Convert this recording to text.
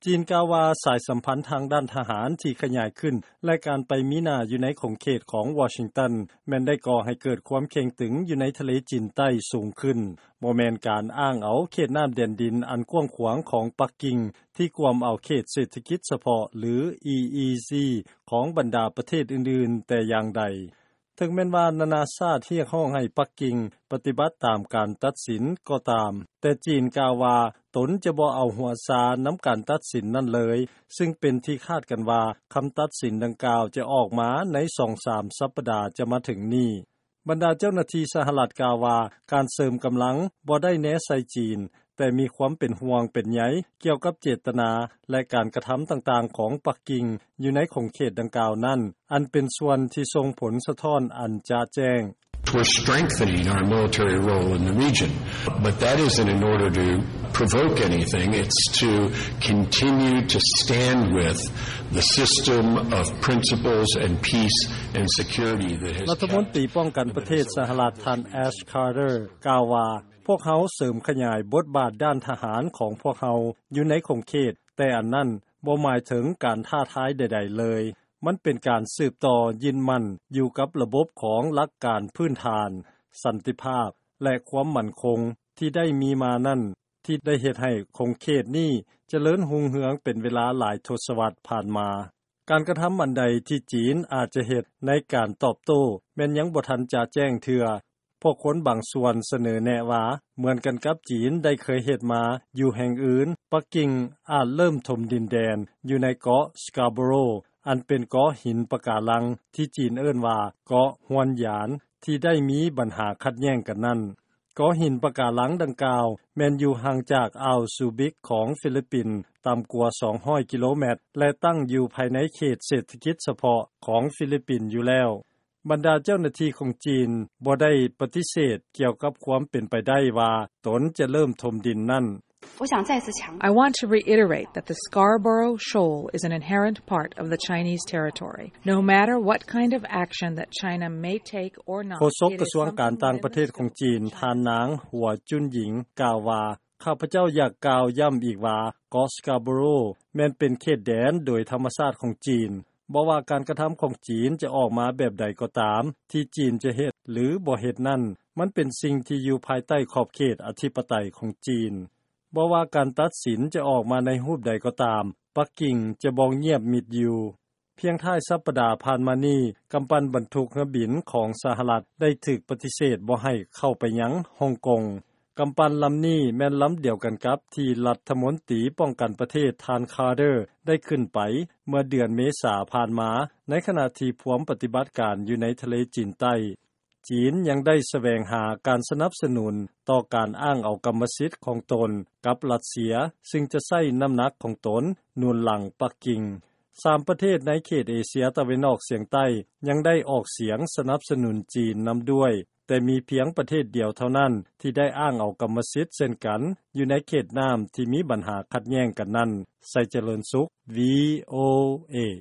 ຈີນກ່າວວ່າ ສາຍສຳພັນທາງດ້ານທະຫານທີ່ຂະຫຍາຍຂຶ້ນ ແລະ ການໄປມີໜ້າຢູ່ໃນຂົງເຂດຂອງວໍຊິງຕັນ ແມ່ນໄດ້ກໍ່ໃຫ້ເກີດຄວາມເຄັ່ງຕຶງຢູ່ໃນທະເລຈີນໃຕ້ສູງຂຶ້ນ, ບໍ່ແມ່ນການອ້າງເອົາເຂດນ້ຳແດນດິນອັນກວ້າງຂວາງຂອງປັກກິ່ງ ທີ່ກວມເອົາເຂດເສດຖະກິດສະເພາະ ຫຼື EEZ ຂອງບັນດາປະເທດອື່ນໆແຕ່ຢ່າງໃດ. ເຖິງແມ່ນວ່ານານາຊາດຮຽກຮ້ອງໃຫ້ປັກກິ່ງປະຕິບັດຕາມການຕັດສິນກໍຕາມ, ແຕ່ຈີນກ່າວວ່າຕົນຈະບໍ່ເອົາຫົວຊານຳການຕັດສິນນັ້ນເລີຍ, ຊຶ່ງເປັນທີ່ຄາດກັນວ່າຄຳຕັດສິນດັ່ງກ່າວຈະອອກມາໃນສອງສາມສັບປະດາຈະມາເຖິງນີ້. ບັນດາເຈົ້າໜ້າທີ່ສະຫະລັດກ່າວວ່າ ການເສີມກຳລັງບໍ່ໄດ້ແນໃສ່ຈີນ, ແຕ່ມີຄວາມເປັນຫ່ວງເປັນໃຍກ່ຽວກັບເຈດຕະນາ ແລະ ການກະທຳຕ່າງໆຂອງປັກກິ່ງຢູ່ໃນຂົງເຂດດັ່ງກ່າວນັ້ນ, ອັນເປັນສ່ວນທີ່ສົ່ງຜົນສະທ້ອນອັນຈະແຈ້ງ. We're strengthening our military role in the region, but that isn't in order to provoke anything. It's to continue to stand with the system of principles and peace and security that has ລັດຖະມົນຕີປ້ອງກັນປະເທດສະຫະລັດ ທ່ານ Ash Carter ກ່າວວ່າ ພວກເຮົາເສີມຂະຫຍາຍບົດບາດດ້ານທະຫານຂອງພວກເຮົາຢູ່ໃນຂົງເຂດ, ແຕ່ອັນນັ້ນບໍ່ໝາຍເຖິງການທ້າທາຍໃດໆເລີຍ. ມັນເປັນການສືບຕໍ່ຍຶດໝັ້ນຢູ່ກັບລະບົບຂອງຫຼັກການພື້ນຖານ, ສັນຕິພາບ ແລະ ຄວາມໝັ້ນຄົງທີ່ໄດ້ມີມານັ້ນ, ທີ່ໄດ້ເຮັດໃຫ້ຂົງເຂດນີ້ຈະເລີນຮຸ່ງເຮືອງເປັນເວລາຫຼາຍທົດສະວັດຜ່ານມາ. ການກະທຳອັນໃດທີ່ຈີນອາດຈະເຮັດໃນການຕອບໂຕ້ ແມ່ນຍັງບໍ່ທັນຈະແຈ້ງເທື່ອ. ພວກຄົນບາງສ່ວນສະເໜີແນະວ່າ ເໝືອນກັນກັບຈີນໄດ້ເຄີຍເຮັດມາຢູ່ແຫ່ງອື່ນ, ປັກກິ່ງອາດເລີ່ມຖົມດິນແດນຢູ່ໃນເກາະ Scarborough ອັນເປັນເກາະຫີນປະກາລັງທີ່ຈີນເອີ້ນວ່າເກາະຮວນຢານ ທີ່ໄດ້ມີບັນຫາຂັດແຍ່ງກັນນັ້ນ. ເກາະຫີນປະກາລັງດັ່ງກ່າວແມ່ນຢູ່ຫ່າງຈາກອ່າວຊູບິກຂອງຟີລິບປິນຕ່ຳກວ່າສອງຮ້ອຍກິໂລແມັດ ແລະ ຕັ້ງຢູ່ພາຍໃນເຂດເສດຖະກິດສະເພາະຂອງຟີລິບປິນຢູ່ແລ້ວ. ບັນດາເຈົ້າໜ້າທີ່ຂອງຈີນບໍ່ໄດ້ປະຕິເສດກ່ຽວກັບຄວາມເປັນໄປໄດ້ວ່າຕົນຈະເລີ່ມຖົມດິນນັ້ນ. I want to reiterate that the Scarborough Shoal is an inherent part of the Chinese territory, no matter what kind of action that China may take or not. ໂຄສົກກະຊວງການຕ່າງປະເທດຂອງຈີນ ທ່ານນາງ ຫົວຈຸນຫຍິງ ກ່າວວ່າ ຂ້າພະເຈົ້າຢາກກ່າວຢ້ຳອີກວ່າ ເກາະ Scarborough ແມ່ນເປັນເຂດແດນໂດຍທຳມະຊາດຂອງຈີນ. ບໍ່ວ່າການກະທຳຂອງຈີນຈະອອກມາແບບໃດກໍຕາມ, ທີ່ຈີນຈະເຮັດ ຫຼື ບໍ່ເຮັດນັ້ນ, ມັນເປັນສິ່ງທີ່ຢູ່ພາຍໃຕ້ຂອບເຂດອະທິປະໄຕຂອງຈີນ. ບໍ່ວ່າການຕັດສິນຈະອອກມາໃນຮູບໃດກໍຕາມ, ປັກກິ່ງຈະບໍ່ງຽບມິດຢູ່. ພຽງທ້າຍສັບປະດາຜ່ານມານີ້, ກຳປັ່ນບັນທຸກເຮືອບິນຂອງສະຫະລັດໄດ້ຖືກປະຕິເສດບໍ່ໃຫ້ເຂົ້າໄປຍັງຮົງກົງ. ກຳປັ່ນລຳນີ້ແມ່ນລຳດຽວກັນກັບທີ່ລັດຖະມົນຕີປ້ອງກັນປະເທດ ທ່ານ Carter ໄດ້ຂຶ້ນໄປເມື່ອເດືອນເມສາຜ່ານມາ, ໃນຂະນະທີ່ພວມປະຕິບັດການຢູ່ໃນທະເລຈີນໃຕ້. ຈີນຍັງໄດ້ສະແຫວງຫາການສະໜັບສະໜູນຕໍ່ການອ້າງເອົາກຳມະສິດຂອງຕົນກັບລັດເຊຍ, ຊຶ່ງຈະໃຊ້ນ້ຳໜັກຂອງຕົນໜູນຫຼັງປັກກິ່ງ. ສາມປະເທດໃນເຂດເອເຊຍຕາເວັນອອກສຽງໃຕ້ຍັງໄດ້ອອກສຽງສະໜັບສະໜູນຈີນນຳດ້ວຍ, ແຕ່ມີພຽງປະເທດດຽວເທົ່ານັ້ນທີ່ໄດ້ອ້າງເອົາກຳມະສິດເຊັ່ນກັນ ຢູ່ໃນເຂດນ້ຳທີ່ມີບັນຫາຂັດແຍ່ງກັນນັ້ນ. ໄຊຈະເລີນສຸກ VOA.